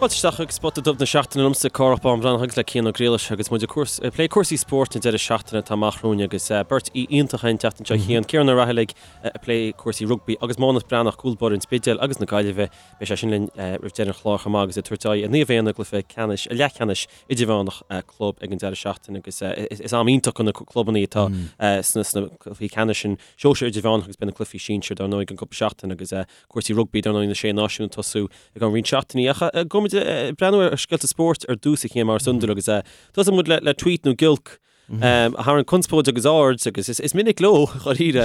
Fáilte isteach chuig Spota Dubh na Seachtaine liomsa, Cárthach Bán Breathnach agus le Cian Ó Griallais agus muid ag plé cúrsaí spóirt an deireadh seachtaine atá amach romhainn agus beirt aoi iontach an tseachtain seo, Cian, Ciarán Ó Raghallaigh ag plé cúrsaí rugbaí agus Mánus Breathnach, cúl báire an Spidéil agus na Gaillimhe. Beidh sé sin linn roimh deireadh an chláir chomh maith agus ag tabhairt aghaidh ar Naomh Éanna i gcluiche ceannais, leathcheannais idirmheánach club ag an deireadh seachtaine agus is am iontach do na clubanna atá sna cluichí ceannais sin, sóisir idirmheánach agus beidh na cluichí sinsir dar ndóigh i gceann cúpla seachtain agus cúrsaí rugbaí dar ndóigh na Sé Náisiún ag tosú I gceann roinnt seachtainí. Ach gabhfaidh muid ag breathnú ar scéalta spóirt ar dtús a Chiain mar is iondúil agus tosóidh muid le tweet nó giolc a tharraing conspóid agus aird agus is minic leo dháiríre.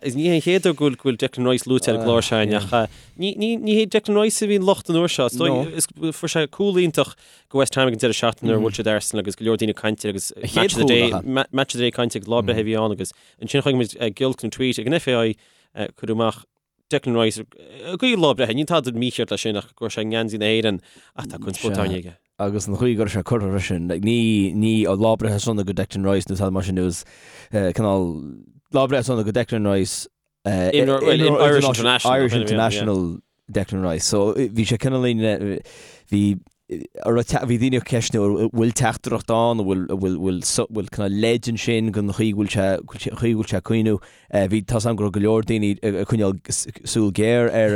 Is ní hé an chéad uair go bhfuil Declan Rice luaite ar an gclár seo ach ní hé Declan Rice a bhí an locht an uair seo. Is dóigh fuair sé cúl iontach go West Ham ag an deireadh seachtaine nuair a bhuail siad Arsenal agus go leor daoine ag caint air agus match of the day match of the day caint agus lá breithe a bhí ann agus ansin chonaic muid giolc nó tweet ag an FAI cuireadh amach Declan Rice ag guí lá breithe, níl tada mícheart leis sin ach go raibh sé i ngeansaí na hÉireann ach tá conspóid tarraingthe aige. Agus an chaoi go raibh sé curtha freisin, like, ní, ní lá breithe sona go Declan Rice nó tada mar sin, it was cineál lá breithe sona go Declan Rice, Imreoir, well, Irish international, Irish international Declan Rice. So bhí sé cineál, bhí, bhí daoine ag ceistniú an bhfuil teachtaireacht ann, an bhfuil, bhfuil, bhfuil, bhfuil cineál leid ansin don chaoi go bhfuil sé, chaoi go bhfuil sé ag caoineadh. Bhí, tá's agam go raibh go leor daoine ag coinneáil súil ghéar ar,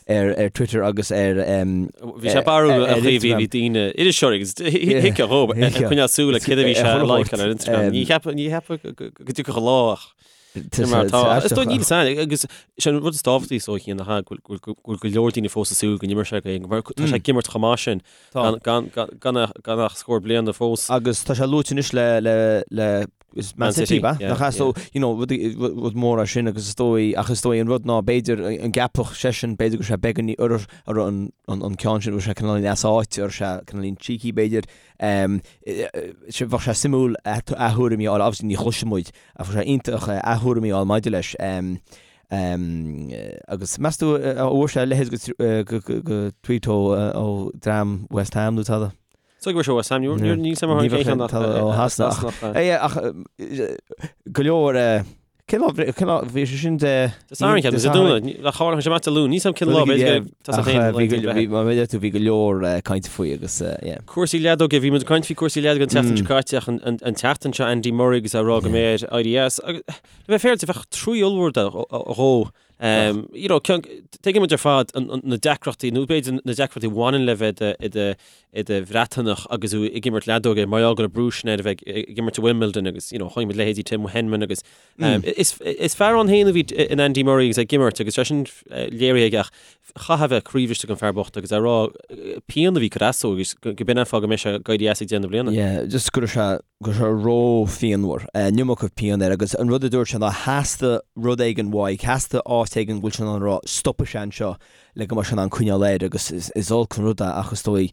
ar, ar Twitter agus ar, Bhí sé barrúil an chaoi a bhí daoine, iriseoirí agus thuigfeá dhóibh, ag coinneáil súil ar céard a bhí sé a like-áil ar Instagram. Ní cheapfá, ní cheapfá go dtiocfadh an lá ach Sin mar atá. Is dóigh níl a fhios againn agus sé an rud is tábhachtaí is dóigh ná go bhfuil go leor daoine fós ag súil go n-imreoidh sé go mar tá sé ag imirt chomh maith sin gan gan gan ach scór bliana fós. Agus tá sé luaite anois le le le is Man City, ba? Nach ea? So, you know, rud rud mór é sin agus is dóigh ach is dóigh an rud ná b'fhéidir an gceapfadh seisean b'fhéidir go raibh sé beagán ar ar an an an ceann sin go raibh sé cineál as áit ar sé cineál cheeky b'fhéidir. Bheadh sé suimiúil a thuairimí a fháil, obviously ní chloisfidh muid Ach bheadh sé iontach a thuairimí a fháil maidir leis. Agus meas tú an bhfuair sé a leithéid de tweet ó dream West Ham nó tada? Is dóigh go bhfuair sé West Ham, níl 'fhios a'm cén ceann ach ó Shasana. Ach go leor cén lá cén lá bhí sé sin de Dé Sathairn ceapaim, Dé Domhnaigh, le tharla sé amach Dé Luain, níl 'fhios a'm cén lá b'fhéidir go tá féin Bhí mar a deir tú bhí go leor cainte faoi agus yeah. Cúrsaí leadóige, bhí muid ag caint faoi cúrsaí leadóige an tseachtain seo caite ach an tseachtain seo Andy Murray agus é ag rá go mbeidh air éirí as. Agus le bheith féaráilte bheadh trua ollmhór dhó. You know, tuigeann muid ar fad na deacrachtaí, nó b'fhéidir na deacrachtaí a bhaineann le bheith i do Bhreatanach agus tú ag imirt leadóige mar gheall go raibh brú sin air a bheith ag imirt i Wimbledon agus, you know, chonaic muid leithéidí Tim Henman agus Is fear ann féin a bhí in Andy Murray agus é ag imirt agus sé sin léirithe aige ach chaithfeadh a bheith croíbhriste don fear bocht agus é ag rá pian a bhí ag cur as dó agus go b'in an fáth go mbeidh sé ag éirí as ag deireadh na bliana. Yeah, just go raibh sé, go raibh sé ró-phianmhar, an iomarca pian air agus an rud a dúirt sé ná theastaigh rud éigin uaidh, theastaigh áit éigin go bhfuil sé in ann a rá stopfaidh sé anseo le go mbeidh sé in ann coinneáil air agus is olc an rud é ach is dóigh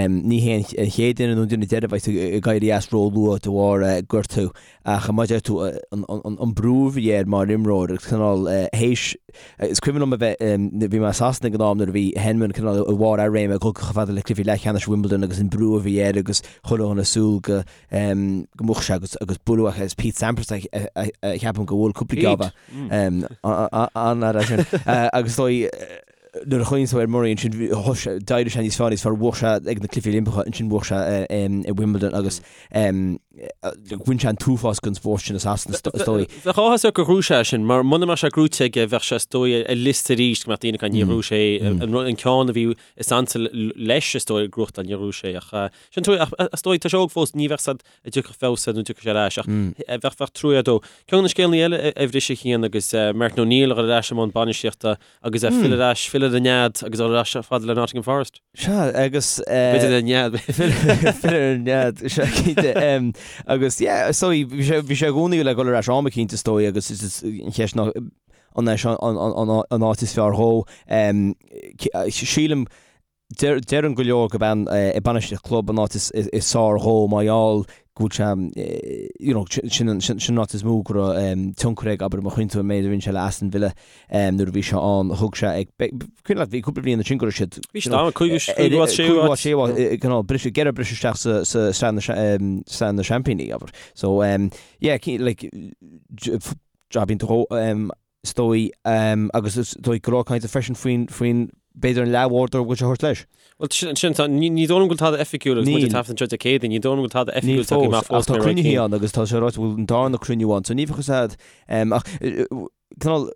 ní hé an chéad duine nó an duine deiridh a bheidh ag éirí as ró-luath de bharr gortú ach mar a deir tú an brú a bhí air mar imreoir agus cineál théis is cuimhin liom a bheith bhí mé i Sasana ag an am nuair a bhí Henman cineál i bharr a réime ag dul chomh fada le cluichí leathcheannais Wimbledon agus an brú a bhí air agus chuile dhuine ag súil go go mbuafadh sé agus agus bualadh agus Pete Sampras a cheapaim gur bhuail cúpla geábh an-fhear é sin agus is dóigh nuair a chuimhníonn tú ar Murray ansin d'éirigh sé níos fearr níos fearr bhuaigh sé ag na Cluichí Oilimpeacha ansin bhuaigh sé i Wimbledon agus bhain sé an t-uafás den spórt sin i Sasana is dóigh. Bheadh áthas air gur ghnóthaigh sé sin mar muna mbeadh sé gnóthaithe aige bheadh sé is dóigh ar liosta arís go mbeadh daoine ag caint níor ghnóthaigh sé an ceann a bhí is ansa leis is dóigh a ghnóthachtáil níor ghnóthaigh sé ach sin trua ach is dóigh tá sé óg fós ní bheadh a fhios a'd an dtiocfadh feabhas air nó an dtiocfadh sé ar ais ach bheadh bheadh trua air dó. Ceann de na scéalna eile a bhris a Chian agus Martin O'Neill a dhul ar ais i mbun bainistíochta agus é filleadh ar ais, filleadh ar an nead agus a dhul ar ais fada le Nottingham Forest. Sea, agus. B'fhéidir ar an nead. Filleadh ar an nead, sea, cinnte. Agus, yeah, is dóigh, bhí sé, bhí sé i gcónaí le dhul ar ais am eicínt, is dóigh, agus is an cheist ná an é seo an áit is fearr dhó. Sílim, Deireann go leor gurb é bainistíocht club an áit is fearr dhó mar gheall go bhfuil sé, you know, sin an áit is mó go raibh tionchar aige, abair, má chuimhníonn tú an méid a rinne sé le Aston Villa nuair a bhí sé ann, thug sé ag, cuimhin leat, bhí cúpla bliain ansin go raibh siad, Bhí siad ann, cúigiú, cúigiú áit, séú áit. séú áit, cineál briseadh, ag iarraidh briseadh isteach sa, sa sraith na, sraith na seaimpíní, abair. So, yeah, like, jab iontach dhó, is dóigh, agus is dóigh go leor cainte freisin faoin, faoin. b'fhéidir an leathbhádóir a bhfuil sé a thabhairt leis. Bhuel, sin, sin, tá, ní, ní dóigh liom go bhfuil tada oifigiúil agus muid ag taifead anseo Dé Céadaoin, ní dóigh liom go bhfuil tada oifigiúil tagtha amach fós. Ach tá cruinnithe ann agus tá sé ráite go bhfuil an darna cruinniú ann, so ní bheadh fhios a'd, ach, cineál,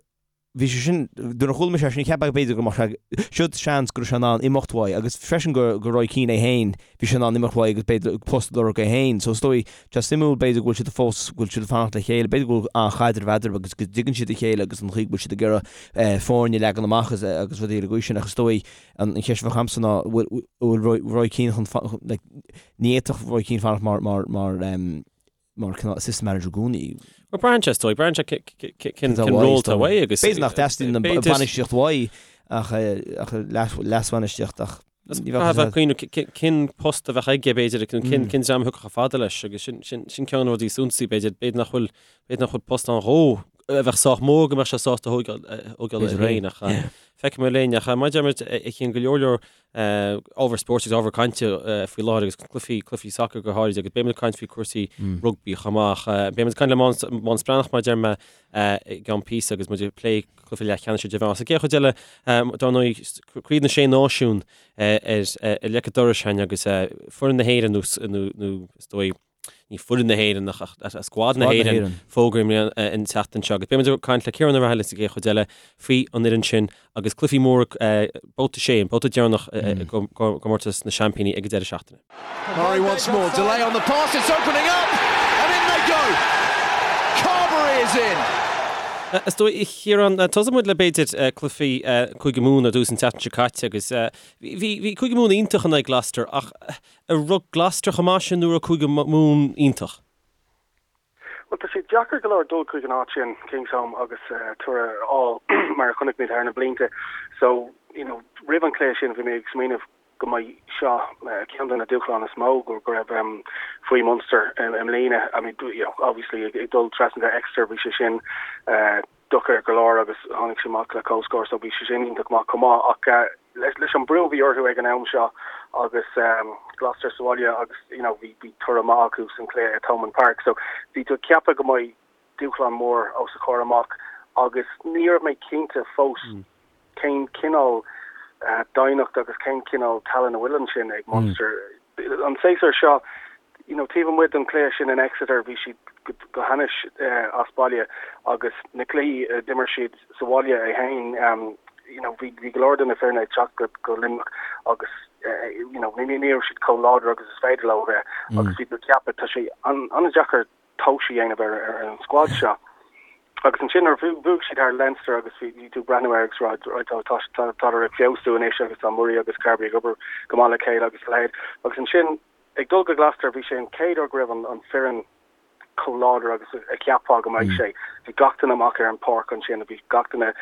bhí sé sin, nuair a chuala mise é sin, cheap mé b'fhéidir go mbeadh sé, siod seans go raibh sé in ann imeacht uaidh agus freisin go, go Roy Keane é féin, bhí sé in ann imeacht uaidh agus b'fhéidir post a lorg é féin. So is dóigh, tá sé suimiúil b'fhéidir go bhfuil siad fós, go bhfuil siad ag fanacht le chéile, b'fhéidir go bhfuil an-chaidreamh eadarthu agus go dtuigeann siad a chéile agus an chaoi go bhfuil siad ag iarraidh foirne a leagan amach agus, agus rudaí ar an gcaoi sin ach is dóigh an cheist a bheadh a'msa ná bhfuil, bhfuil Roy, Roy Keane chun, like, ní fhéadfadh Roy Keane fanacht mar, mar, mar, mar cineál assistant manager i gcónaí. Bhuel, braitheann sé, is dóigh, braitheann sé cén ról atá uaidh agus... B'fhéidir nach dteastaíonn an bhainistíocht uaidh ach leasbhainistíocht ach ní bheadh a fhios agat. Cén post a bheadh aige, b'fhéidir, cén dream a thiocfadh chomh fada leis agus sin ceann de na rudaí suntasaí, b'fhéidir, b'fhéidir nach bhfuil, b'fhéidir nach bhfuil post ann dhó a bheadh sách mór go mbeadh sé sásta a thógáil air féin ach feicfidh muid linn ach mar a deir muid a Chian go leor leor ábhar spóirt agus ábhar cainte faoi láthair agus cluichí, cluichí sacair go háirid agus beidh muid ag caint faoi cúrsaí rugbaí chomh maith. Beidh muid ag caint le Mánas Breathnach mar a deir mé i gceann píosa agus muid ag plé cluiche leathcheannais idirmheánach. Sa gcéad chuid eile, dar ndóigh, Craobh na Sé Náisiún ar leic an dorais againn agus foireann na hÉireann nó is dóigh, ní foireann na hÉireann ach scuad na hÉireann fógraithe an tseachtain seo agus beidh muid ag caint le Ciarán Ó Raghallaigh sa gcéad chuid eile faoi an fhoireann sin agus cluichí móra babhta 6, an babhta deireanach i gcomórtas na seaimpíní ag an deireadh seachtaine. Murray once more, delay on the pass, it's opening up and in they go! Carbery is in! Is dóigh, a Chiaráin, tosóidh muid le b'fhéidir cluichí Cúige Mumhan ar dtús an tseachtain seo caite agus bhí Cúige Mumhan iontach in aghaidh Gloucester ach An raibh Gloucester chomh maith sin nó raibh Cúige Mumhan iontach? Bhuel, tá sé deacair go leor dul chuig an áit sin, Kingsholm, agus toradh a fháil, mar a chonaic muid thar na blianta. So, you know, roimh an chluiche sin bhí mé ag smaoineamh go mbeidh seo ceann de na dúshláin is mó go raibh faoi Munster i mbliana. I mean, you know, obviously ag dul trasna go Exeter bhí sé sin deacair go leor agus tháinig sé amach le comhscór so bhí sé sin iontach maith chomh maith ach leis an brú a bhí orthu ag an am seo agus Gloucester sa bhaile agus you know bhí bhí toradh maith acu san cluiche i Thomond Park so bhí tú ag ceapadh go mbeidh dúshlán mór os a chomhair amach agus ní raibh mé cinnte fós cén cineál doimhneacht agus cén cineál tallann a bhfuil ansin ag Munster. An séasúr seo, you know, taobh amuigh den chluiche sin in Exeter, bhí siad go hainnis as baile agus na cluichí a d'imir siad sa bhaile é féin, you know, bhí go leor de na foirne ag teacht go Luimneach agus, you know, ní raibh siad chomh láidir agus is féidir leo a bheith agus bhí tú ag ceapadh, tá sé an-deacair tomhas a dhéanamh ar an scuad seo. Agus ansin nuair a bhuaigh siad thar Leinster agus bhí tú ag breathnú air agus rá right tá tádar ag feabhsú anois agus tá Murray agus Carbery ag obair go maith le chéile agus a leithéid. Agus ansin ag dul go Gloucester bhí sé an chéad uair go raibh an foireann chomh láidir agus a cheapfá go mbeadh sé. Bhí gach duine amach ar an pháirc ansin, bhí gach duine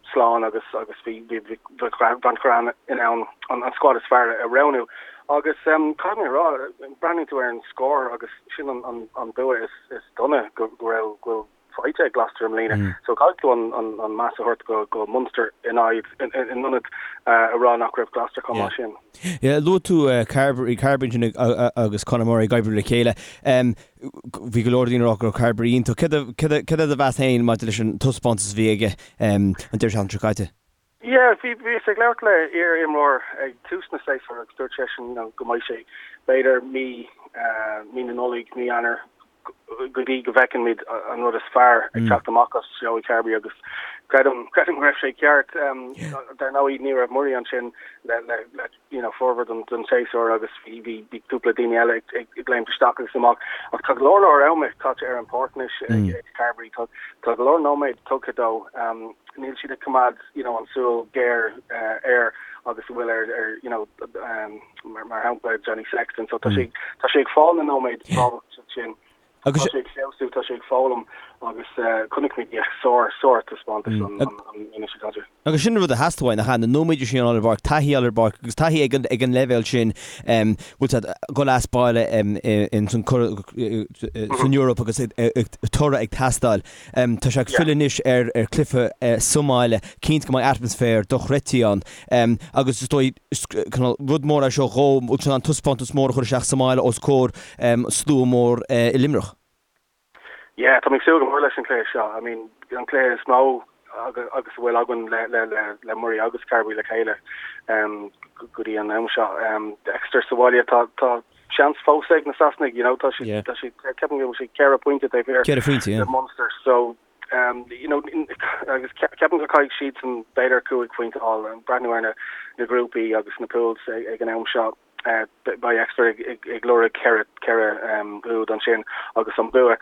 slán agus agus bhí Van Graan in ann an scuad is fearr a roghnú. Agus caithfidh mé a rá, breathnaíonn tú ar an scór agus sin an bua is dona go raibh, go bhfuil faighte ag Gloucester i mbliana. So caithfidh tú an meas a thabhairt go Munster in aghaidh, in ionad a rá nach raibh Gloucester chomh maith sin. Yeah, luaigh tú Carbery, Carbery ansin agus Conor Murray ag oibriú le chéile. Bhí go leor daoine ag rá go raibh Carbery iontach. Céard é do mheas féin maidir leis an taispeántas a bhí aige an deireadh seachtaine seo caite? Yeah, bhí, bhíos ag labhairt le iar-imreoir ag tús na séasúir agus dúirt seisean, you know, go mbeidh sé b'fhéidir mí, mí na Nollag, mí Eanáir go dtí go bhfeiceann muid an rud is fearr ag teacht amach as Joey Carbery agus creidim, creidim go raibh sé ceart. Dar ndóigh ní raibh Murray ansin le, le, le you know, formhór den, den séasúr agus bhí, bhí, bhí cúpla daoine eile ag, ag, ag léimt isteach agus amach ach tá go leor leor ama caite ar an pháirc anois ag, ag Carbery. Tá, tá go leor nóiméad tugtha dó. Níl siad ag coimeád you know an súil géar air agus a bhfuil ar ar you know mar mar shampla Johnny Sexton so tá sé tá sé ag fáil na nóiméad tábhachtach sin. Agus tá sé ag feabhsú, tá sé ag foghlaim agus chonaic muid yeah sár sár taispeántas an an an seo caite. Agus sin an rud a theastaigh uaidh, nach ea? Na nóiméid sin a fháil ar an bpáirc, taithí a fháil ar an bpáirc agus taithí ag an ag an leibhéal sin bhfuil siad ag dul as baile in san san Eoraip agus toradh ag teastáil. Tá sé ag filleadh anois ar chluiche sa mbaile, cinnte go mbeidh atmaisféar dochreidte ann agus is dóigh rud mór é seo dhó, bhfuil sé in ann taispeántas mór a chur isteach sa mbaile os comhair slua mór i Luimneach. Yeah, tá mé ag súil go mór leis an chluiche seo. I mean, an cluiche is mó. agus a bhfuil againn le le le le Murray agus Carbery le chéile go dtí an am seo. Exeter sa bhaile tá tá seans fós ag na Sasanaigh, you know, tá siad tá siad ceapaim go bhfuil siad 4 pointe taobh thiar 4 phointe, yeah. de Munster so you know agus ceapaim go caithfidh siadsan b'fhéidir 5 phointe a fháil, breathnú ar na na grúpaí agus na pools ag an am seo. Beidh Exeter ag lorg 4 4 úd ansin agus an bua.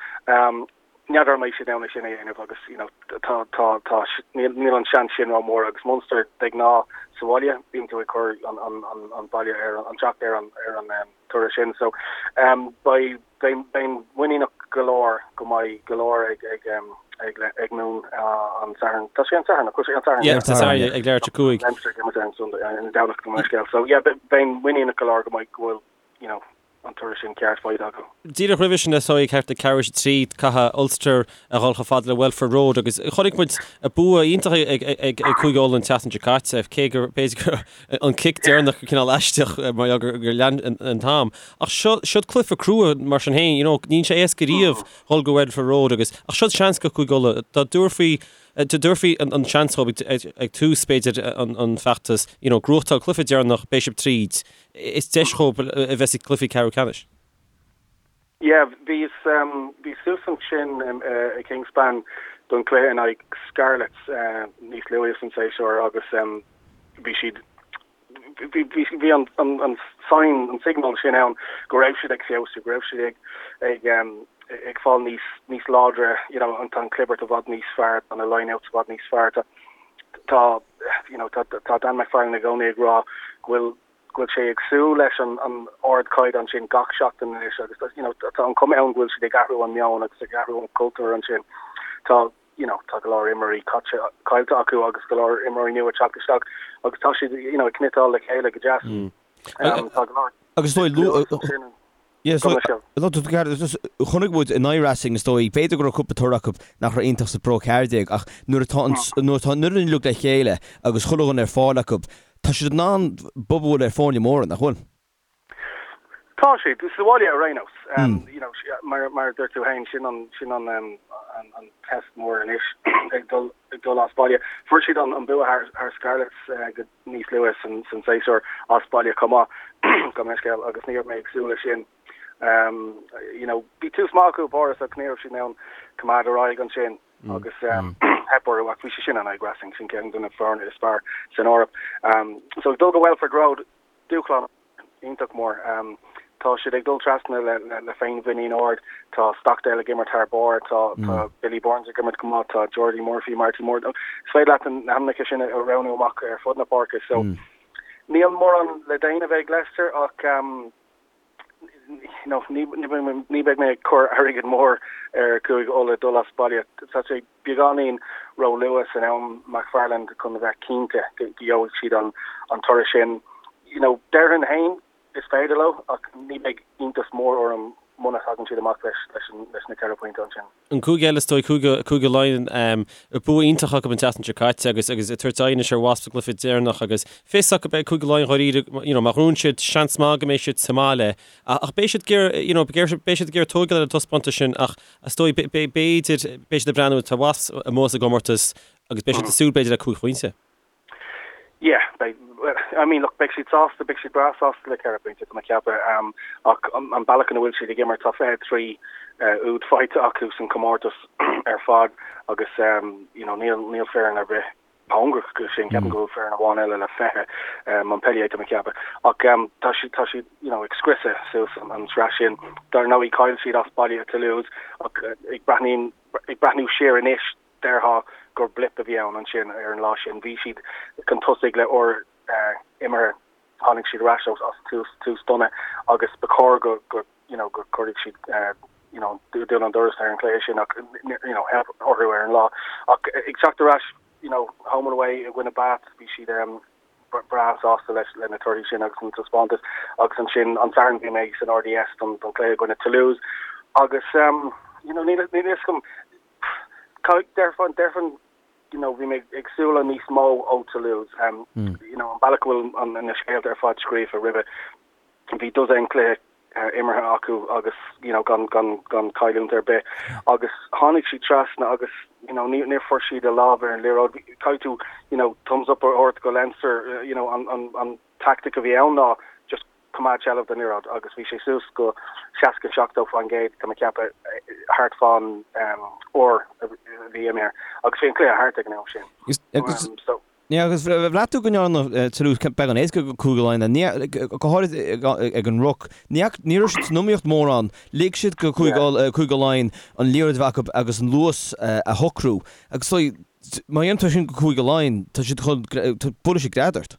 N'fheadar an mbeidh siad in ann é sin a dhéanamh agus you know tá tá tá níl níl an seans sin rómhór agus Munster de ghnáth sa bhaile bíonn tú ag cur an an an an baile ar an teacht ar an ar an toradh sin so beidh beidh beinn muiníneach go leor go mbeidh go leor ag ag ag ag Moon an Satharn. Tá sé an Satharn, nach bhfuil sé an Satharn? Yeah, tá Satharn ag leathuair tar éis 5. Leinster ag imirt ar an Sunday ar an Domhnach gabh mo leithscéal. So yeah beinn muiníneach go leor go mbeidh go bhfuil you know an toradh sin ceart faighte acu. Díreach roimhe sin is dóigh thart ag ceathrú tar éis 3 caithfidh Ulster a dhul chomh fada le Welford Road agus chonaic muid bua iontach ag Cúige Uladh an tseachtain seo caite, cé gur b'fhéidir go an cic deireanach cineál aisteach mar gheall gur lean an t-am. Ach seo siod cluiche crua mar sin féin, you know, níl sé éasca riamh dhul go Welford Road agus ach siod seans go Cúige Uladh dá dtabharfaí Dá dtabharfaí an seans dóibh ag tús, b'fhéidir, an feachtas, you know, gnóthachtáil cluiche deireanach, beidh sibh tríd. Is deis dhóibh a bheith sa gcluiche ceathrú ceannais. Yeah, bhíos, bhíos suas ansin i Kingspan don chluiche in aghaidh Scarlets níos luaithe san séasúr agus bhí siad, bhí, bhí, bhí an, an, an sign, an signal sin ann go raibh siad ag feabhsú, go raibh siad ag, ag, ag fáil níos, níos láidre, you know, an, tá an clibirt i bhfad níos fearr, tá na line-outs i bhfad níos fearr, tá, tá, you know, tá, tá Dan McFarland i gcónaí ag rá go bhfuil, go bhfuil sé ag súil leis an, an ardchaighdeán sin gach seachtain anois agus, you know, tá an chuma ann go bhfuil siad ag athrú an meon agus ag athrú an cultúr ansin. Tá, you know, tá go leor imreoirí caite, caillte acu agus go leor imreoirí nua ag teacht isteach agus tá siad, you know, ag cniotáil le chéile go deas. Um, tá go leor Agus is dóigh, lu- Yeah, so, chonaic muid in aghaidh Racing is dóigh, b'fhéidir go raibh cúpla toradh acu nach raibh iontach sa Pro 14 ach nuair atá an, nuair atá an fhoireann uilig le chéile agus chuile dhuine ar fáil acu, tá siad in ann bob a bhualadh ar foirne móra, nach bhfuil? Tá siad, sa bhaile ar aon nós. You know, mar, mar a dúirt tú féin, sin an, sin an, an, an test mór anois ag dul, ag dul as baile. Fuair siad an, an bua thar, thar Scarlets go níos luaithe san, san séasúr as baile chomh maith, gabh mo leithscéal, agus ní raibh mé ag súil leis sin. You know, bhí tús maith acu i bPáras ach ní raibh siad in ann coimeád ar aghaidh ansin agus theip orthu ach bhí sé sin in aghaidh Racing, sin ceann de na foirne is fearr san Eoraip. So ag dul go Welford Road, dúshlán iontach mór. Tá siad ag dul trasna le féinmhuinín ard. Tá Stockdale ag imirt thar barr, tá Billy Burns ag imirt go maith, tá Jordi Murphy, Marty Moore. Is féidir leat na hainmneacha sin a roghnú amach ar fud na páirce. So níl mórán le déanamh ag Leicester ach you know, ní ní beidh mé ag cur airgead mór ar Chúige Uladh dul as baile. Tá sé beagáinín ró-luath san am McFarland chun a bheith cinnte go gheobhaidh siad an toradh sin. You know, déarfainn féin is féidir leo ach ní bheidh iontas mór orm muna dtagann siad amach leis leis na 4 pointe ansin. An cúige eile is dóigh, Cúige, Cúige Laighean, bua iontach acu an tseachtain seo caite agus agus ag tabhairt aghaidh anois ar Wasps sa gcluiche deireanach agus fios acu beidh Cúige Laighean dháiríre, you know, má ghnóthaíonn siad seans maith go mbeidh siad sa mbaile ach beidh siad ag iarraidh, you know, beidh siad ag iarraidh tógáil ar an taispeántas sin ach Is dóigh, b'fhéidir, beidh siad ag breathnú, tá Wasps amuigh as an gcomórtas agus beidh siad ag súil b'fhéidir le 5 phointe. Yeah, beidh, I mean, look, beidh siad sásta, beidh siad breá sásta le 4 phointe, tá mé ag ceapadh, um, ach an bealach ina bhfuil siad ag imirt, tá 23 uh, úd faighte acu san comórtas ar fad agus um, you know, níl, níl foireann ar bith cóngarach go sin, ceapaim go bhfuil foireann amháin eile le 20, Montpellier tá mé ag ceapadh. Ach tá siad, tá siad, you know, ag scriosadh suas an tsraith sin. Dar ndóigh, chaill siad as baile i Toulouse ach ag breathnaíonn, ag breathnú siar anois, déarfá gur blip a bhí ann ansin ar an lá sin. Bhí siad chun tosaigh le uair imeartha, tháinig siad ar ais as tús, tús dona agus ba chóir go, go, you know, go gcuirfeadh siad, you know, dún an doras ar an chluiche sin ach, you know, theip orthu ar an lá. Ach ag teacht ar ais, you know, home and away i gcoinne Bath, bhí siad um, breá sásta leis le na torthaí sin agus an taispeántas agus ansin an Satharn bhí mé san RDS don, don chluiche i gcoinne Toulouse agus um, you know, níl, níl fhios agam déarfainn, déarfainn you know, bhí mé ag súil le níos mó ó Toulouse um, mm. you know, an bealach go bhfuil an, na scéalta ar fad scríofa roimhe bhí dosaen cluiche. imeartha acu agus you know gan gan gan cailliúint ar bith agus tháinig siad trasna agus you know ní níor fuair siad a lámh ar an liathróid. Caithfidh tú you know thumbs up a thabhairt go Leinster you know an an an tactic a bhí ann ná just coimeád seilbh den liathróid agus bhí sé suas go 60 70% tá mé ag ceapadh thart fán uair a bhí imithe agus bhí an cluiche thart ag an am sin. So Yeah, agus bhraith tú go ndearna Toulouse beagán éasca do Chúige Laighean, go háirid ag an ruc. Ní raibh siad san iomaíocht mórán. Lig siad do Chúige Laighean an liathróid a bheith acu agus an luas a shocrú. Agus má dhéanann tú sin do Chúige Laighean, tá siad chun, buailfidh siad gread ort.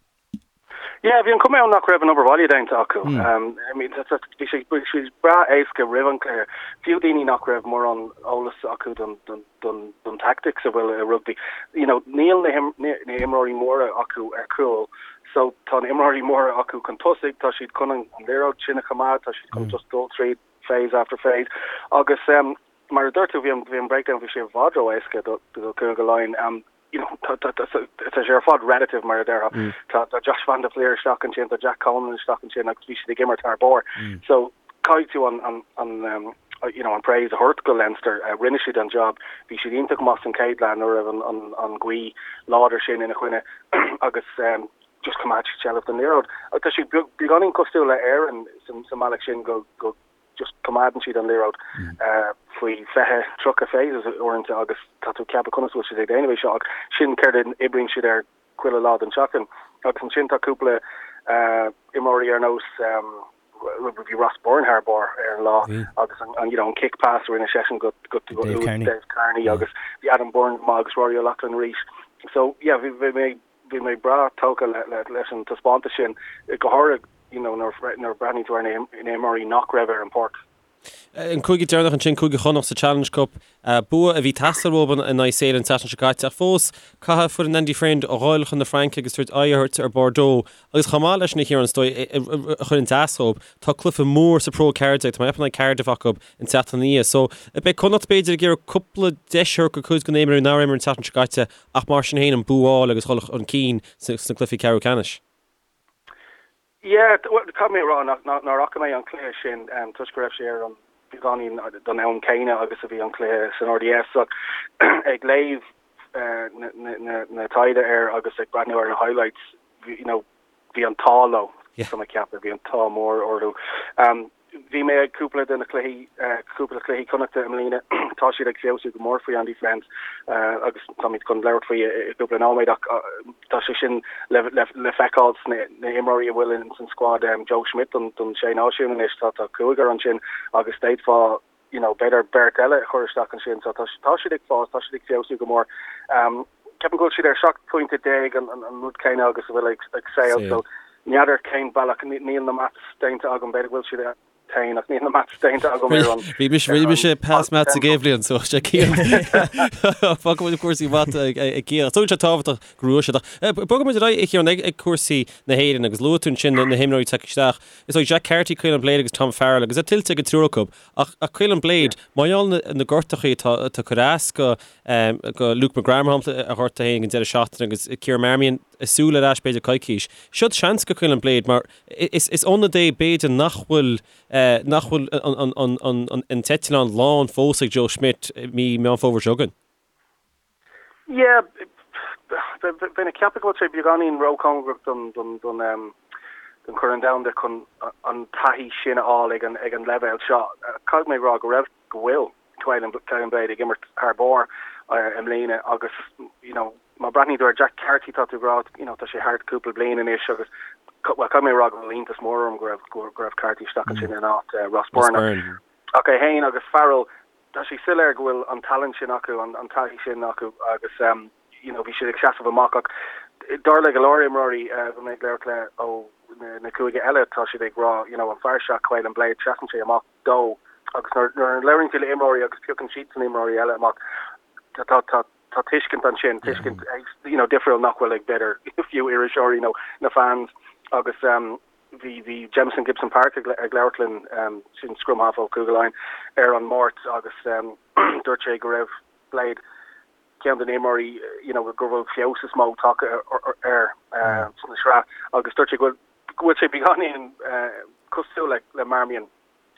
Yeah, bhí an chuma ann nach raibh an obair bhaile déanta acu. I mean, bhí sé bhí sé breá éasca roimh an chluiche. Fiú daoine nach raibh mórán eolas acu don don don don tactics a bhfuil i rugbaí. You know, níl na na himreoirí móra acu ar chúl. So tá na imreoirí móra acu chun tosaigh, tá siad chun an liathróid sin a choimeád, tá siad chun just dul tríd phase after phase. Agus um, mar a dúirt tú, bhí an bhí an breakdown bhí sé i bhfad ró-éasca do do Chúige Laighean. Um, you know, tá sé ar fad relative mar a déarfá. Tá tá Josh van der Flier isteach ansin, tá Jack Conan isteach ansin agus bhí siad ag imirt thar barr. So caithfidh tú an an an um, you know, an praise a thabhairt go Leinster. Uh, rinne siad an job. Bhí siad iontach maith san chéad leath nuair a raibh an, an, an ghaoth láidir sin ina choinne agus um, just choimeád siad seilbh den liathróid. Tá siad beagáinín cosúil le Éirinn sa, sa mbealach sin go, go just coimeádann siad an liathróid faoi 20, 30 phases uaireanta agus tá tú ag ceapadh conas a bhfuil siad ag déanamh é seo ach sin céard a oibríonn siad air chuile lá den tseachtain. Agus ansin tá cúpla imreoirí ar nós bhí Ross Byrne thar barr ar an lá agus an you know an kick pass a rinne seisean go go Dave Kearney agus bhí Adam Byrne go maith agus Rory O'Loughlin arís. So yeah bhí mé Bhí mé breá tógtha leis an taispeántas sin, go háirithe you know nuair a breathnaíonn tú ar na himreoirí nach raibh ar an bpáirc. An cúige deireanach ansin, Cúige Chonnacht sa Challenge Cup, bua a bhí ag teastáil uathu in aghaidh Sale an tseachtain seo caite ach fós caithfidh foireann Andy Friend a dhul chun na Fraince agus tabhairt aghaidh a thabhairt ar Bordeaux agus chomh maith leis sin a Chiaráin is dóigh a chuireann as dóibh, tá cluiche mór sa Pro 14, tá mé ag ceapadh in aghaidh Cardiff acu an tseachtain ina dhiaidh. So beidh Connacht b'fhéidir ag iarraidh cúpla deis a thabhairt do chuid de na himreoirí nár imir an tseachtain seo caite ach mar sin féin an bua a fháil agus dhul chun cinn sna cluichí ceathrú ceannais. Yeah, bhuel, caithfidh mé a rá nach nár fhaca mé an cluiche sin toisc go raibh sé ar an beagáinín don am céanna agus a bhí an cluiche san RDS ach ag léamh na taighde air agus ag breathnú ar na highlights, you know, bhí an t-ádh leo, tá mé ag ceapadh, bhí an t-ádh mór orthu. Bhí mé ag cúpla de na cluichí, cúpla cluichí Connachta i mbliana, tá siad ag feabhsú go mór faoi Andy Friend agus táimid chun labhairt faoi i gcúpla nóiméad ach tá sé sin le le feiceáil sna na himreoirí a bhfuil in san squad, Joe Schmidt don don Sé Náisiún anois, tá tá cúigear ansin agus d'fhéadfá you know, b'fhéidir beirt eile a chur isteach ansin. So tá, tá siad ag fás, tá siad ag feabhsú go mór. Um, ceapaim go bhfuil siad ar 17 pointe an, an, an rud céanna agus a bhfuil ag, ag Sale. So n'fheadar cén bealach, níl na maths déanta agam, b'fhéidir go bhfuil siad féin ach níl na maths déanta agam ar an. Bhí mise, bhí mise pass maths ag Éibhlíon, so sé Cian. Fágfaidh muid cúrsaí mata ag, ag Cian. Ach tugann sé tábhachtach go raibh siad. Ach bogfaidh muid ar aghaidh a Chiaráin ag, ag cúrsaí na hÉireann agus luaigh tú ansin na, na himreoirí ag teacht isteach. Is dóigh Jack Carty, Caolán Blade agus Tom Farrell agus é tuillte ag an triúr acu. Ach Caolán Blade, mar gheall ar na gortachaí atá ag cur as go go Luke McGrath mar shampla a ghortaigh féin ag an deireadh seachtaine agus Ciarán Marmion ag súil ar ais b'fhéidir coicís. Seod seans go Caolán Blade mar is is ionad é b'fhéidir nach bhfuil nach bhfuil an an an an t-eitleán lán fós ag Joe Schmidt mí Meán Fómhair seo chugainn. Yeah, bheinn ag ceapadh go bhfuil sé beagáinín róchóngarach don don don don Chorn Domhanda chun an taithí sin a fháil ag an ag an leibhéal seo. Caithfidh mé a rá go raibh go bhfuil Caolán Caolán Blade ag imirt thar barr i mbliana agus you know má breathnaíonn tú ar Jack Carty tá tú ag rá you know tá sé thart cúpla bliain anois agus well caithfidh mé a rá go bhfuil iontas mór orm go raibh go raibh Carty isteach ansin in áit Ross Byrne. Ach é féin agus Farrell Tá sé soiléir go bhfuil an tallann sin acu, an taithí sin acu agus you know bhí siad ag seasamh amach ach dar le go leor imreoirí a bhí mé ag labhairt le ó na cúige eile tá siad ag rá you know an fear seo Caolán Blade seasann sé amach dó agus nuair nuair a labhraíonn tú le imreoirí agus piocann siadsan imreoirí eile amach tá tá tá tá tuiscint ansin, tuiscint you know difriúil nach bhfuil ag b'fhéidir fiú iriseoirí nó na fans agus um, Bhí bhí Jamison Gibson-Park ag ag labhairt linn, sin scrum half ó Chúige Laighean, ar an Máirt agus dúirt sé go raibh Blade ceann de na himreoirí you know go bhfuil feabhas is mó tagtha air sna sraith agus dúirt sé go bhfuil go bhfuil sé beagáinín cosúil le le Marmion.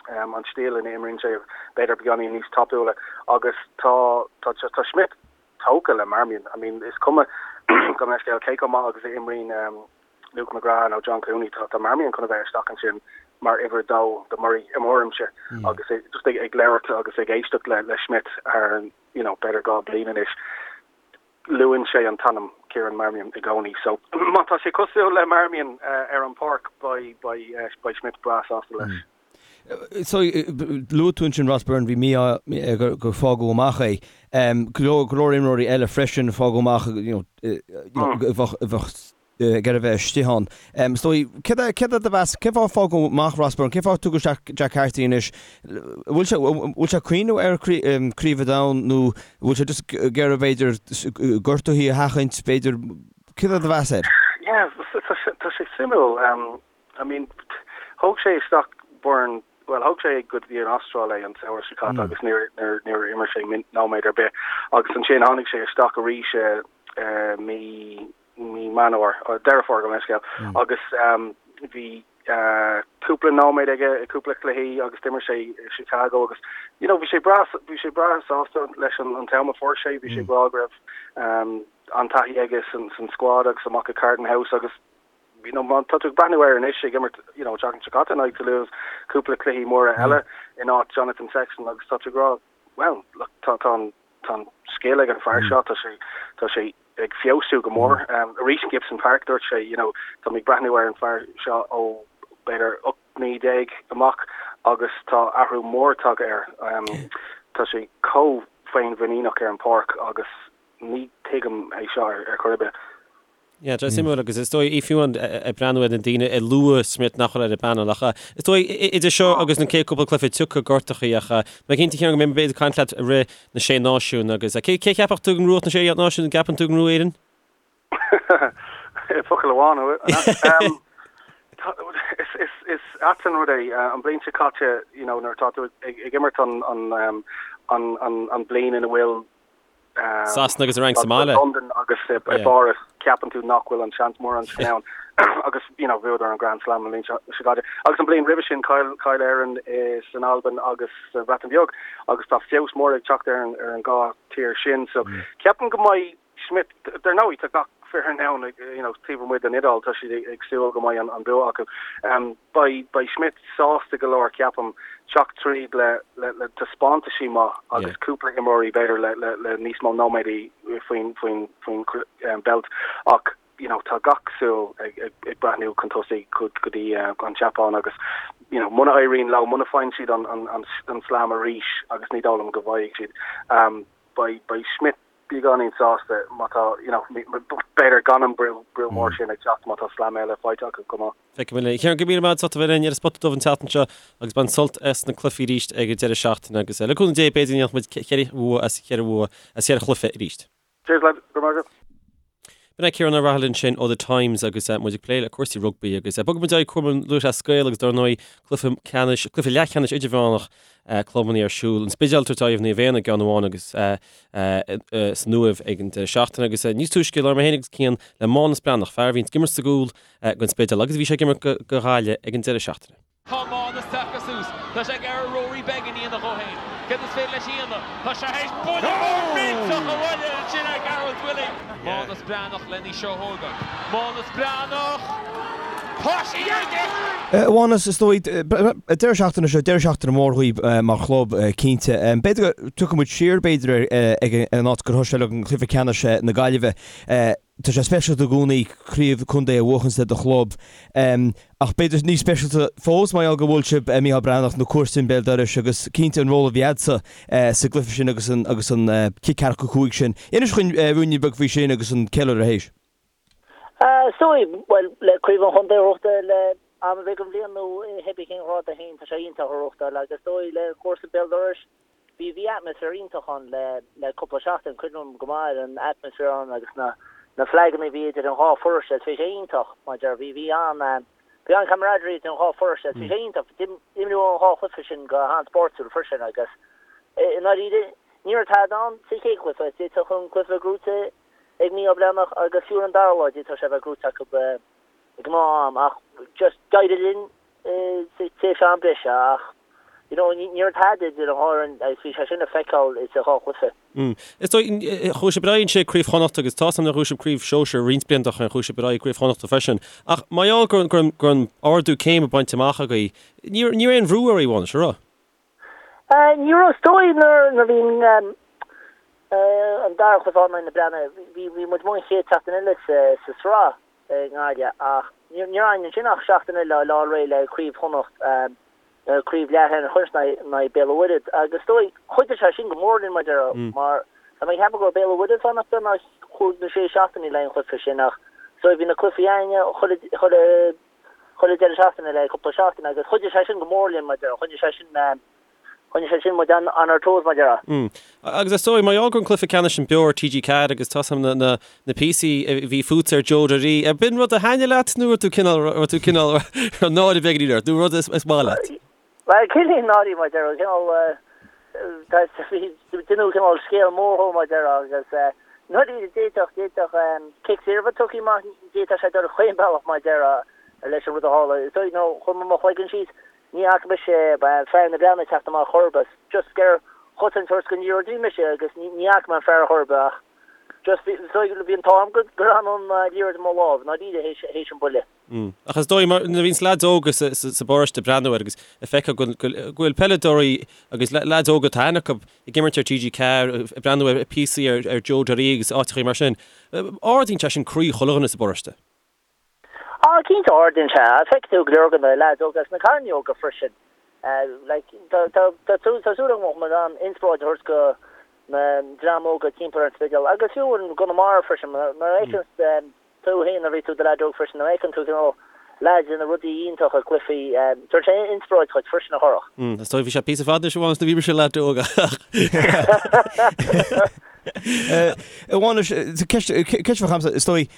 An stíl ina imríonn sé b'fhéidir beagáinín níos tapúla agus tá tá tá Schmidt tógtha le Marmion. I mean is cuma gabh mo leithscéal cé chomh maith agus a imríonn Luke McGrath nó John Cooney tá tá Marmion chun a bheith isteach ansin mar uimhir a dó do Murray i mo thuairimse agus just ag ag labhairt agus ag éisteacht le le Schmidt thar you know b'fhéidir 2 bliain anois. Luann sé an t-ainm Kieran Marmion i gcónaí so má tá sé cosúil le Marmion ar an pháirc beidh beidh Schmidt breá sásta leis. So luaigh tú ansin Ross Byrne, bhí mí-ádh gur fágadh amach é. Go leor go leor imreoirí eile freisin fágadh amach you know bheadh bheadh ag iarraidh a bheith istigh ann. Is dóigh, céard é, céard é do mheas, cén fáth a fágadh amach Ross Byrne, cén fáth a tugadh isteach Jack Carty anois? Bhfuil sé, bhfuil sé ag cuimhneamh ar Craobh an Domhain nó bhfuil sé just ag iarraidh b'fhéidir gortuithe a sheachaint, b'fhéidir, céard é do mheas air? Yeah, tá sé, tá sé suimiúil. I mean, thóg sé isteach Byrne, bhuel, thóg sé go dtí an Astráil é an samhradh seo caite agus níor, níor, níor imir sé nóiméad ar bith agus ansin tháinig sé isteach arís i mí, mí Meán Fhómhair, Deireadh Fómhair gabh mo leithscéal, agus bhí cúpla nóiméad aige i cúpla cluichí agus d'imir sé i Chicago agus you know bhí sé breá bhí sé breá sásta leis an an t-am a fuair sé, bhí sé ag rá go raibh an-taithí aige san san squad agus amach i Carton House agus you know má tá tú ag breathnú air anois ag imirt you know an tseachtain seo caite in aghaidh Toulouse, cúpla cluichí móra eile in áit Jonathan Sexton agus tá tú ag rá well look tá tá an tá an scil ag an fear seo, tá sé tá sé ag feabhsú go mór. Arís in Gibson Park dúirt sé you know tá mé ag breathnú ar an fear seo ó b'fhéidir 18 mí amach agus tá athrú mór tagtha air. Tá sé chomh féinmhuiníneach ar an pháirc agus ní tuigim é seo ar chor ar bith. Yeah, tá suimiúil agus is dóigh fiú ag breathnú ar na daoine a luaigh Schmidt nach bhfuil ar an bpainéal ach is dóigh idir seo agus na chéad cúpla cluiche tiocfaidh gortachaí ach mé cinnte Ciarán go mbeidh mé b'fhéidir ag caint leat i rith na Sé Náisiún agus cé cé cheapfadh tú go ngnóthódh na Sé Náisiún an gceapann tú go ngnóthóidh Éirinn? Focal amháin um, is is ait an rud é an bliain seo caite you know nuair atá tú ag ag imirt an an an an an bliain ina bhfuil Sasana agus an Fhrainc sa mbaile. Londain agus i bPáras, ceapann tú nach bhfuil an seans mórán sin ann agus you know bhuadar an Grand Slam an bhliain seo caite. Agus an bliain roimhe sin chaill chaill Éirinn san Albain agus sa Bhreatain Bheag agus tá feabhas mór ag teacht ar an ar an dhá tír sin. So ceapaim go mbeidh Schmidt, dar ndóigh tá gach foireann ann you know taobh amuigh den Iodáil, tá siad ag súil go mbeidh an bua acu. Beidh beidh Schmidt sásta go leor ceapaim teacht tríd le le le taispeántaisí maith agus cúpla imreoirí b'fhéidir le le le níos mó nóiméadaí faoin faoin faoin beilt ach you know tá gach súil ag ag ag breathnú chun tosaigh go go dtí an tSeapáin agus you know muna éiríonn leo muna faigheann siad an an an an slam arís agus ní dóigh liom go bhfaighidh siad beidh beidh Schmidt beagáinín sásta má tá, you know, b'fhéidir gan an brú, brú mór sin ag teacht má tá slam eile faighte acu chomh maith. Feicfidh muid. Ciarán, go raibh míle maith agat as ucht a bheith linn ar an Spota Dubh an tseachtain seo agus bain sult as na cluichí arís ag an deireadh seachtaine agus le cúnamh Dé b'fhéidir go ndéanfaidh muid cheithre bhua as cheithre bhua as cheithre chluiche arís. Cheers lads, go raibh maith agat. B'in é Ciarán Ó Raghallaigh ansin ó The Times agus muid ag plé le cúrsaí rugbaí agus bogfaidh muid ar aghaidh Cumann Lúthchleas Gael agus dar ndóigh cluiche ceannais, cluiche leathcheannais idirmheánach clubanna ar siúl. An Spidéal ag tabhairt aghaidh ar Naomh Éanna i gceann amháin agus san Uaimh ag an deireadh seachtaine agus níos túisce labhair mé féin agus Cian le Mánus Breathnach, fear a bhíonn ag imirt sa gcúl don Spidéal agus a bhí sé ag imirt do Ghaillimh ag an deireadh seachtaine. Tá Mánus tagtha suas. Tá sé ag iarraidh Rory Beggan a dhéanamh dhó féin. Céard is féidir leis a dhéanamh? Tá sé théis buille mór millteach a bhualadh ansin ar Gearóid Willie. Mánus Breathnach len í seo a thógáil. Mánus Breathnach! Tá sí aige! A Mhánus, is dóigh, deireadh seachtaine seo, deireadh seachtaine mór dhaoibh mar chlub, cinnte. B'fhéidir go dtiocfaidh muid siar, b'fhéidir, ag an áit gur thosaigh sé le cluiche ceannais na Gaillimhe. Tá sé speisialta i gcónaí craobh contae a bhuachaint le do chlub, ach b'fhéidir níos speisialta fós mar gheall gur bhuail sibh Mícheál Breathnach, na comharsana béal dorais agus cinnte an ról a bhí agatsa sa gcluiche sin agus an agus an cic ceathracha 5 sin. Inis dhúinn ruainnín beag faoi sin agus an ceiliúradh théis. Is dóigh, bhuel, le craobh an chontae a ghnóthachtáil le am ar bith den bhliain nó pé cén ghrád é féin, tá sé iontach a ghnóthachtáil agus is dóigh le comharsa béal dorais, Bhí, bhí atmaisféar iontach ann le, le cúpla seachtain, cuimhním go maith ar an atmaisféar ann agus na, na flaganna a bhí idir an dhá pharóiste, bhí sé iontach, mar a deir, bhí, bhí an, bhí an camaraderie idir an dhá pharóiste, bhí sé iontach, d'imríodh an dhá chluiche sin go han-spórtúil freisin agus i ndáiríre ní raibh tada ann sa chéad chluiche, d'fhéadfadh an cluiche a bheith gnóite ag Mícheál Breathnach agus fiú ar an dara lá d'fhéadfadh sé a bheith gnóite acu i ngnáth-am ach just d'éirigh linn sa tréimhse am breise ach. you know, ní raibh tada idir an dhá fhoireann agus bhí sé sin le feiceáil sa dhá chluiche. Is dóigh, chuaigh sibh ar aghaidh ansin ag Craobh Chonnacht agus tá 'fhios a'm nár bhuaigh sibh Craobh Shóisir roinnt blianta ó shin, chuaigh sibh ar aghaidh Craobh Chonnachta freisin. Ach mar gheall go raibh an ardú céime bainte amach agaibh, ní raibh aon bhrú oraibh, a Mhánais, an raibh? Ní raibh, is dóigh nuair a bhí an dara cluiche in aghaidh na Breathnaigh, bhí muid amuigh an chéad tseachtain eile sa sraith i nGaillimh ach ní raibh againn ansin ach seachtain eile le fháil réidh le Craobh Chonnacht, Craobh Leathcheannais in aghaidh Béal an Mhuirthead agus is dóigh chuidigh sé sin go mór linn mar déarfá mar tá mé ag ceapadh go raibh Béal an Mhuirthead fán nach beag chúig nó sé seachtainí le an chluiche sin ach is dóigh bhí na cluichí againne chuile chuile chuile deireadh seachtaine le cúpla seachtain agus chuidigh sé sin go mór linn mar déarfá choinnigh sé sin choinnigh sé sin muid on our toes mar déarfá. Mm. Agus is dóigh, mar gheall go raibh an cluiche ceannais sin beo ar TG4 agus tá 'fhios a'm na, na, na píosaí a bhí fútsa ar Joe Doirí, ar b'in rud a thaitnigh leat nó raibh tú cineál, raibh tú cineál, raibh náire beagáinín ort nó rud is, is maith leat? Bhuel, cineál náire mar déarfá, cineál, tá, bhí, deineadh cineál scéal mór dhó mar déarfá agus eh, ndáiríre d'fhéadfadh, d'fhéadfadh cic saor a bheith tugtha amach, d'fhéadfadh sé dul chaon bealach mar déarfá leis an rud a tharla. Is dóigh, nó chuir mé mo chloigeann síos, Ní fhaca mise fear na Breathnaí ag teacht amach chor ar bith. Just ag chosaint don liathróid a bhí mise agus ní fhaca mé an fear chor ar bith ach just bhí bhí an t-ádh orm go raibh an liathróid i mo lámh, ndáiríre, théis an buille. Ach is dóigh mar nuair a bhíonns leaids óga sa sa bparóiste ag breathnú air agus ag feiceáil go go bhfuil peileadóirí agus leaids óga atá aithne acu ag imirt ar TG4, ag breathnú ar píosaí ar ar Joe Doirí agus áiteachaí mar sin, ardaíonn sé sin croí chuile dhuine sa bparóiste. Á, cinnte, ardaíonn sé. Feicfidh tú go leor de na leaids óga agus na cailíní óga freisin. Like, tá, tá, tá súil, tá súil agam go mbeidh muid in ann inspioráid a thabhairt do na dream óga timpeall ar an Spidéal agus fiú i gConamara freisin. Mar a fheiceann tú féin nuair a bhí tú i do leaid óg freisin, nuair a fheiceann tú cineál leaids ag déanamh rudaí iontacha i gcluichí, tugann sé inspioráid dhuit freisin a Chárthach. Is dóigh bhí sé píosa fada anois a Mhánais nuair a bhí mise leaid óg ach. A Mhánais, ceist, ceist a bheadh agamsa, is dóigh,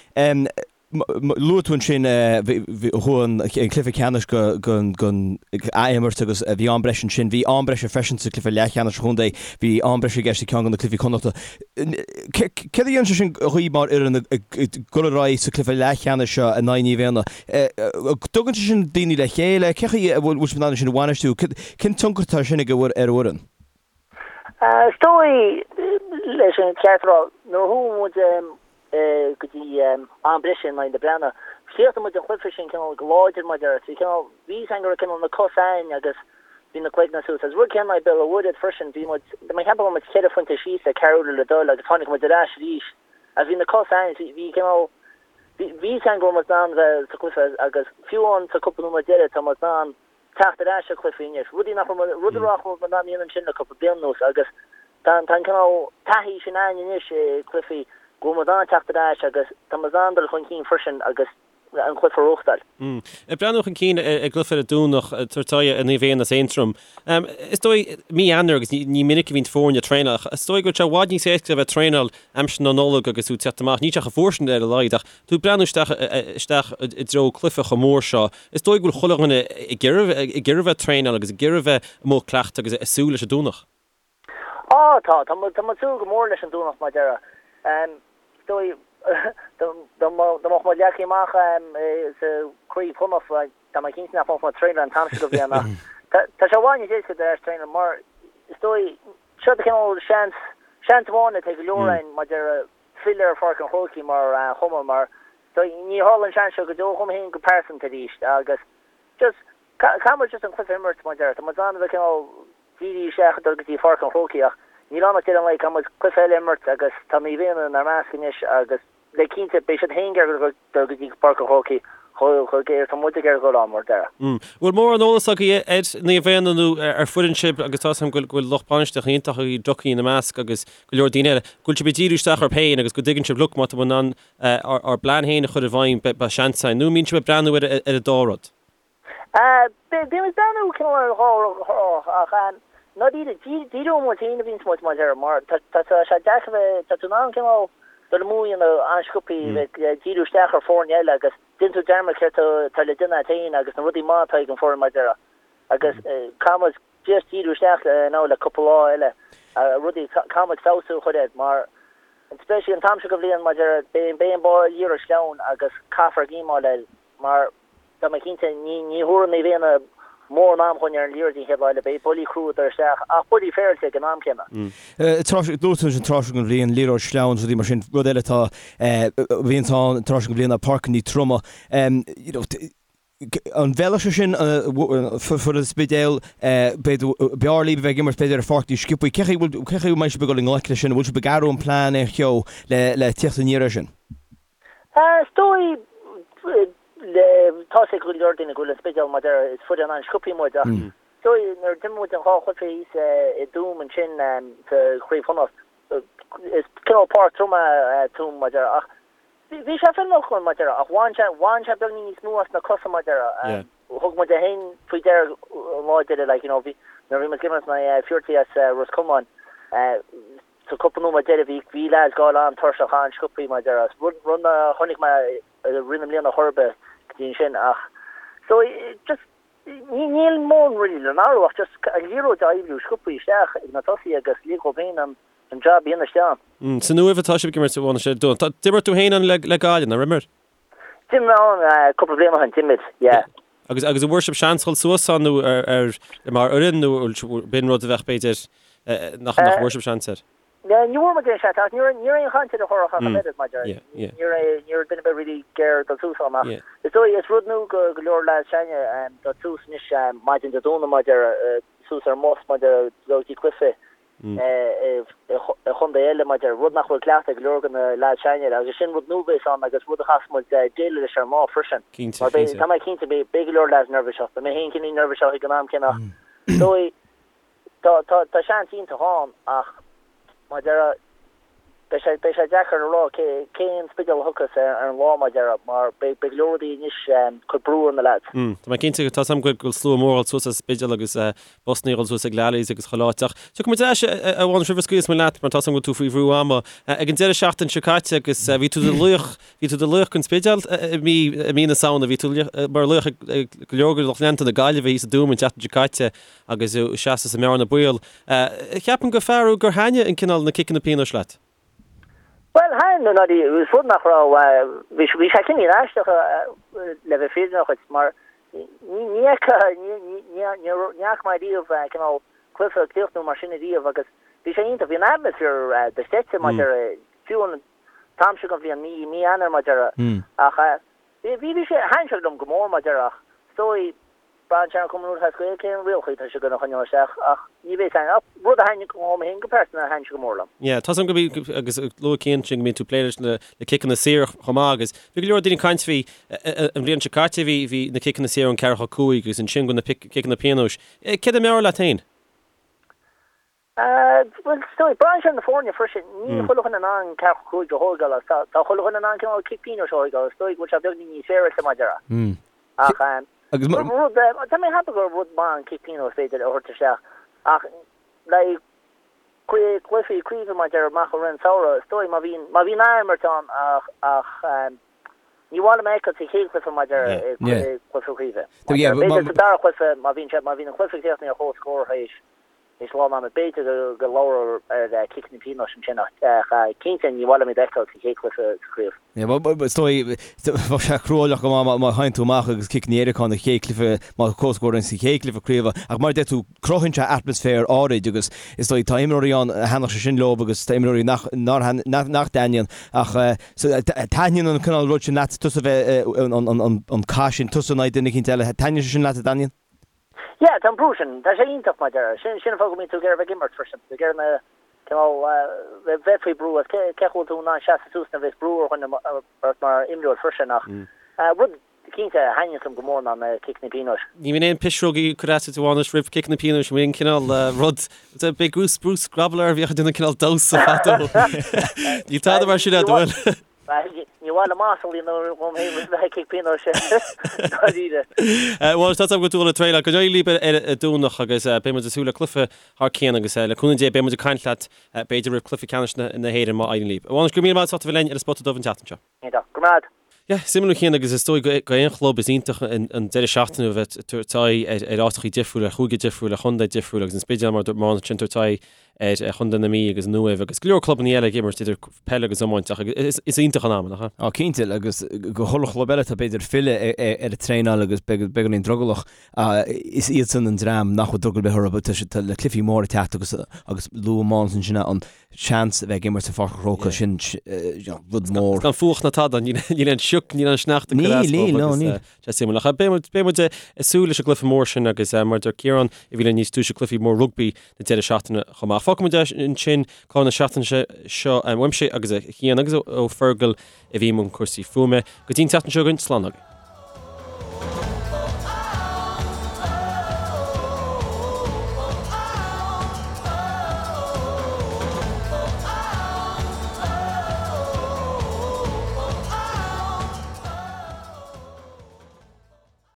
Luaigh tú ansin chuaigh an cluiche ceannais go ath-imirt agus bhí am breise ansin. Bhí am breise freisin sa cluiche leathcheannais an chontae. Bhí am breise i gceist i ceann de na cluichí Connachta. Céard a dhéanann sé sin dhaoibh mar fhoireann ag dul ar aghaidh sa cluiche leathcheannais seo in aghaidh Naomh Éanna? Tugann sé sin daoine le chéile? Cén chaoi a bhfuil sibh in ann sin a bhainistiú? Cén tionchar atá sin ag ar an bhfoireann? Is dóigh, leis an cheart a rá, nuair a chuaigh muid go dtí am breise in aghaidh na Breathnaigh, chríochnaigh muid an cluiche sin cineál go láidir mar déarfá. Bhí cineál, bhí fhios againn go raibh cineál na cosa againn agus bhí na cloigne suas. Agus rud céanna in aghaidh Béal an Mhuirthead freisin, bhí muid, tá mé ag ceapadh go raibh muid ceithre phointe síos le ceathrú uaire le dul agus tháinig muid ar ais arís agus bhí na cosa againn, bhí, bhí cineál, bhí fhios againn go raibh muid in ann bheith sa chluiche agus fiú amháin sa cúpla nóiméad deiridh tá muid in ann teacht ar ais ar chluichí anois, rudaí nach raibh, rud a nach raibh muid in ann a dhéanamh ansin le cúpla bliain anuas agus tá an cineál taithí sin againn anois i gcluichí go bhfuil muid in ann teacht ar ais agus tá muid in ann dul chun cinn freisin agus an cluiche a bhuachtáil. Ag breathnú chun cinn ar an gcluiche ar an Domhnach, ag tabhairt aghaidh ar Naomh Éanna as Aontroim. Is dóigh, mí Eanáir agus ní minic a bhíonn foirne ag traenáil ach is dóigh go bhfuil sé i bhfad níos éasca a bheith ag traenáil aimsir na Nollag agus tú ag teacht amach, níl sé chomh fuar sin ar a laghad ach tú ag breathnú isteach isteach i dtreo cluiche chomh mór seo, is dóigh go bhfuil chuile dhuine ag iarraidh ag iarraidh bheith ag traenáil agus ag iarraidh bheith amuigh ag cleachtadh agus ag súil leis an Domhnach. Á, tá, tá muid ag súil go mór leis an Domhnach mar déarfá. Is dóigh, dá mbeadh muid leagtha amach sa Chraobh Chonnacht, tá mé cinnte nach mbeadh muid ag traenáil an t-am seo de bhliain ach tá sé i bhfad níos éasca dul ar ais traenáil mar is dóigh, seo de chineál seans, seans amháin atá ag go leor againn mar déarfá filleadh ar Pháirc an Chrócaigh mar chumann mar ní tharlaíonn an seans seo go deo dhom féin go pearsanta arís agus just caithfidh muid just an cluiche a imirt mar déarfá. Tá muid in ann a bheith cineál dírithe isteach ag dul go dtí Pháirc an Chrócaigh ach níl ann ach deireadh an lae caithfidh muid cluiche eile a imirt agus tá Naomh Éanna inár measc anois agus le cinnte beidh siad féin ag iarraidh dul go dtí Páirc an Chrócaigh chomh géar is atá muid ag iarraidh dul ann mar déarfá. Bhfuil mórán eolas agaibh ar Naomh Éanna nó ar foireann sibh agus tá 'fhios agam go bhfuil lucht bainistíochta iontach agaibh Ducky ina measc agus go leor daoine eile, go bhfuil sibh ag díriú isteach oraibh féin agus go dtuigeann sibh look má tá muid in ann ár bplean féin a chur i bhfeidhm beidh seans againn nó an mbíonn sibh ag breathnú ar an dá rud? Bíonn muid ag breathnú cineál ar an dhá rud ach ndáiríre, díreoidh muid féin a bhíonns muid mar déarfá mar tá sé deacair bheith, tá tú in ann cineál dul amú a dhéanamh an-sciobthaí bheith ag díriú isteach ar foirne eile agus déanann tú dearmad céard atá le déanamh agat féin agus na rudaí maithe atá ag an foireann mar déarfá agus caithfidh muid just díriú isteach now le cúpla lá eile rudaí caithfidh muid feabhsú a chur air mar especially an t-am seo de bhliain mar déarfá beidh beidh an liathróid sleamhain agus caithfear géimeáil air mar tá mé cinnte ní ní thabharfaidh Naomh Éanna. mórán am dhúinn ar an liathróid an chéad lá eile. Beidh buillí crua ag dul isteach ach buillí féaráilte ag an am céanna. Dúirt tú an tráth seo den bhliain, liathróid sleamhain, rudaí mar sin, rud eile atá, a bhíonns ann an tráth seo den bhliain ná páirceanna troma. You know, an bhfeilfeadh sé sin foireann an Spidéil, b'fhéidir, b'fhearr libh a bheith ag imirt b'fhéidir ar pháirc níos sciobthaí. Cé chaoi bhfuil, cé chaoi a mbeidh sibh ag dul i ngleic leis sin? An bhfuil sibh ag athrú an plean aon cheo le, le tíocht aniar air sin? Is dóigh, tá a fhios ag go leor daoine go bhfuil an Spidéal mar a deir, is foireann an-sciobthaí muid ach is dóigh nuair a d'imir muid an dhá chluiche thíos i dTuaim ansin sa Chraobh Chonnacht, is cineál páirc trom é Tuaim mar a deir ach Bhí sé feiliúnach mar a deir ach bhain sé, bhain sé beagnín níos mó as na cosa mar a deir. Thug muid é féin faoi deara an lá deiridh like you know bhí, nuair a bhí muid ag imirt in aghaidh Fuerty as Ros Comáin sa cúpla nóiméad deiridh bhí, bhí lads ag gabháil an-tuirseach an-sciobthaí mar a deir. Rud, rud nár chonaic mé i rith na mbliana chor ar bith go dtí ansin ach so just ní, níl mórán really le n-athrú ach just an liathróid a oibriú sciobthaí isteach ag na tosaithe agus lig dhóibh féin an, an jab a dhéanamh isteach ann. San Uaimh atá sibh ag imirt, a Mhánais, ar an Domhnach. D'imir tú féin ann le Gaillimh, nár imir? D'imir mé ann cúpla bliain ó shin, d'imir, yeah. Agus agus an bhfuair sibh seans dhul suas ann nó ar ar mar fhoireann nó b'in rud a bheadh b'fhéidir nach nach bhfuair sibh seans air? Ní bhfuair muid aon seans ach ní raibh ní raibh aon chaint ar an churach ach an oiread maidir ní raibh ní raibh duine ar bith really ag iarraidh dul suas ann ach is dóigh is rud nua go go leor lads s'againne dul suas anois maidin Dé Domhnaigh maidir suas ar an mbus maidir dul go dtí cluiche i chontae eile mar a deir, rud nach bhfuil cleachta ag go leor de na leaids s'againne agus sin rud nua a bheas ann agus rud a chaithfeas muid déileáil leis ar an lá freisin. Cinnte, Mar beidh, cinnte. tá mé cinnte, beidh, beidh go leor leaids neirbhíseach, beidh mé féin cineál neirbhíseach ag an am céanna ach is dóigh, tá, tá, tá seans iontach ann ach mar a deir, beidh sé, beidh sé deacair a rá cé, cén Spidéal a thiocfas ar, ar an lá mar a deir mar beidh, beidh go leor rudaí anois ag cur brú ar na leaids. Tá mé cinnte, tá 's agam go bhfuil slua mór ag dul suas as Spidéal agus Busanna ag dul suas ag Lally's agus chuile áit. Ach tiocfaidh muid ar ais, a Mhánais, roimh a scaoilfeas muid leat mar tá 's agam go bhfuil tú faoi bhrú ama. Ag an deireadh seachtaine seo caite agus bhí tú i do laoch, bhí tú i do laoch den Spidéal i mí, i mí na Samhna, bhí tú mar laoch ag go leor de lucht leanta na Gaillimhe thíos i dTuaim an tseachtain seo caite agus tú ag seasamh sa mbearna baol. Ceapaim gur fear thú gur thaitnigh an cineál na ciceanna pionóis leat. Bhuel, thaitin, nó ní, is rud nach raibh, bhí bhí sé cineál aisteach le bheith fírinneach dhuit, mar ní ní fhaca, ní ní ní ní ní fhaca mé riamh cineál cluiche ag críochnú mar sin ariamh agus bhí sé iontach, bhí an atmaisféar dochreidte mar a deir, fiú an t-am seo den bhliain, mí mí Eanáir mar a deir, ach bhí bhí sé, thaitin sé liom go mór mar a deir ach is dóigh, Braitheann sé ar an Chumann Lúthchleas Gael cén rialacha atá siad gonna choinneáil isteach ach ní bheidh fhios againn ach rud a thaitnigh liom féin go pearsanta thaitin sé go mór liom. Yeah, tá 's agam go mbí agus luaigh Cian sin go mbíonn tú ag plé leis na ciceanna saora chomh maith agus bhí go leor daoine ag caint faoi an bhliain seo caite bhí bhí na ciceanna saora ón ceathracha 5 agus ansin go na ciceanna pionóis. Céard a mb'fhearr leat féin? Bhuel, is dóigh, braitheann sé ar na foirne freisin. Níl chuile dhuine in ann 45 a thóigeáil agus tá tá chuile dhuine in ann cineál cic pionóis a thóigeáil. Is dóigh go bhfuil sé beagnín níos féaráilte mar a déarfá. Ach Agus rud, rud, tá mé ag ceapadh gur rud maith an cic pionóis b'fhéidir a thabhairt isteach ach le cluichí craoibhe mar a déarfá amach i rith an samhradh, is dóigh má bhíonn má bhíonn ath-imirt ann ach ach ní mhaith liom a fheiceáil sa chéad chluiche mar a déarfá i gcluiche craoibhe. B'fhéidir sa dara cluiche má bhíonn sé má bhíonn an cluiche críochnaithe ar comhscór théis Is lá ann b'fhéidir go labhrófar ar ciceanna pionóis ansin ach cinnte ní mhaith liom iad a fheiceáil sa chéad chluiche sa chraobh. Is dóigh, bheadh sé cruálach go maith má théann tú amach agus ciceanna éirice ann sa chéad chluiche, má tá comhscór ann sa chéad chluiche craoibhe. Ach mar a deir tú, cruthaíonn sé atmaisféar áirid agus is dóigh tá imreoirí ann a thaitneodh sé sin leo agus tá imreoirí nach nach dtaitníonn. Ach taitníonn an cineál rud sin leat, tusa bheith an cath sin, tusa in aghaidh duine eicínt eile, taitníonn sé sin leat, a Dainín? Yeah, tá an brú sin, tá sé iontach mar a déarfá. Sin, sin an fáth go mbíonn tú ag iarraidh bheith ag imirt freisin, ag iarraidh na, cineál, bheith faoi brú agus cé, cé chaoi bhfuil tú in ann seasamh suas nuair a bheas brú ar dhuine ort mar imreoir freisin ach rud cinnte a thaitníonns liom go mór ná na ciceanna pionóis. Ní bhíonn aon pisreogaí ag cur as duit a Mhánais roimh ciceanna pionóis, an bhfuil aon cineál rud, b'é Bruce, Bruce Grobbelaar a bhíodh ag déanamh cineál damhsa fadó. Níl tada mar sin agat, an bhfuil? Ní mhaith liom masla a dhéanamh dhom féin roimh a chic pionóis dáiríre. Bhuel, tá 's agam go bhfuil tú ag traenáil. Go n-éirí libh ar an Domhnach agus beidh muid ag súil le cluiche thar cionn agus le cúnamh Dé beidh muid ag caint leat b'fhéidir roimh cluiche ceannais na hÉireann má éiríonn libh. A Mhánais, go raibh míle maith agat as ucht a bheith linn ar an Spota Dubh an tseachtain seo. Iontach. Go raibh maith agat. Yeah, suimiúil a Chian agus is dóigh go aon chlub is iontach an deireadh seachtaine a bheith ag tabhairt aghaidh ar áiteachaí difriúla, ar chúige difriúil, ar chontae difriúil agus an Spidéal mar a dúirt Mánus ansin ag tabhairt aghaidh. ar Chontae na Mí agus an Uaimh agus go leor clubanna eile ag imirt idir peil agus iomáint ach is iontach an am, nach ea? Á cinnte, agus go chuile chlub eile atá b'fhéidir ag filleadh ar an traenáil agus beagáinín drogallach, is iadsan an dream nach bhfuil drogall ar bith orthu, tá siad le cluichí móra ag teacht agus agus luaigh Mánas ansin an seans a bheith ag imirt sa Pháirc an Chrócaigh, sin rud mór. Gan fuacht ná tada, níl aon sioc, níl aon sneachta ag cur as dóibh agus Níl, níl. Sé suimiúil. Ach beidh muid ag súil leis an gcluiche mór sin agus mar a deir Ciarán a bhí linn níos túisce cluichí mór rugbaí na deireadh seachtaine chomh maith. Fágfaidh muid ansin clár na seachtaine seo uaimse agus ó Chian agus ó Fergal a bhí i mbun cúrsaí fuaime. Go dtí an tseachtain seo chugainn, slán agaibh.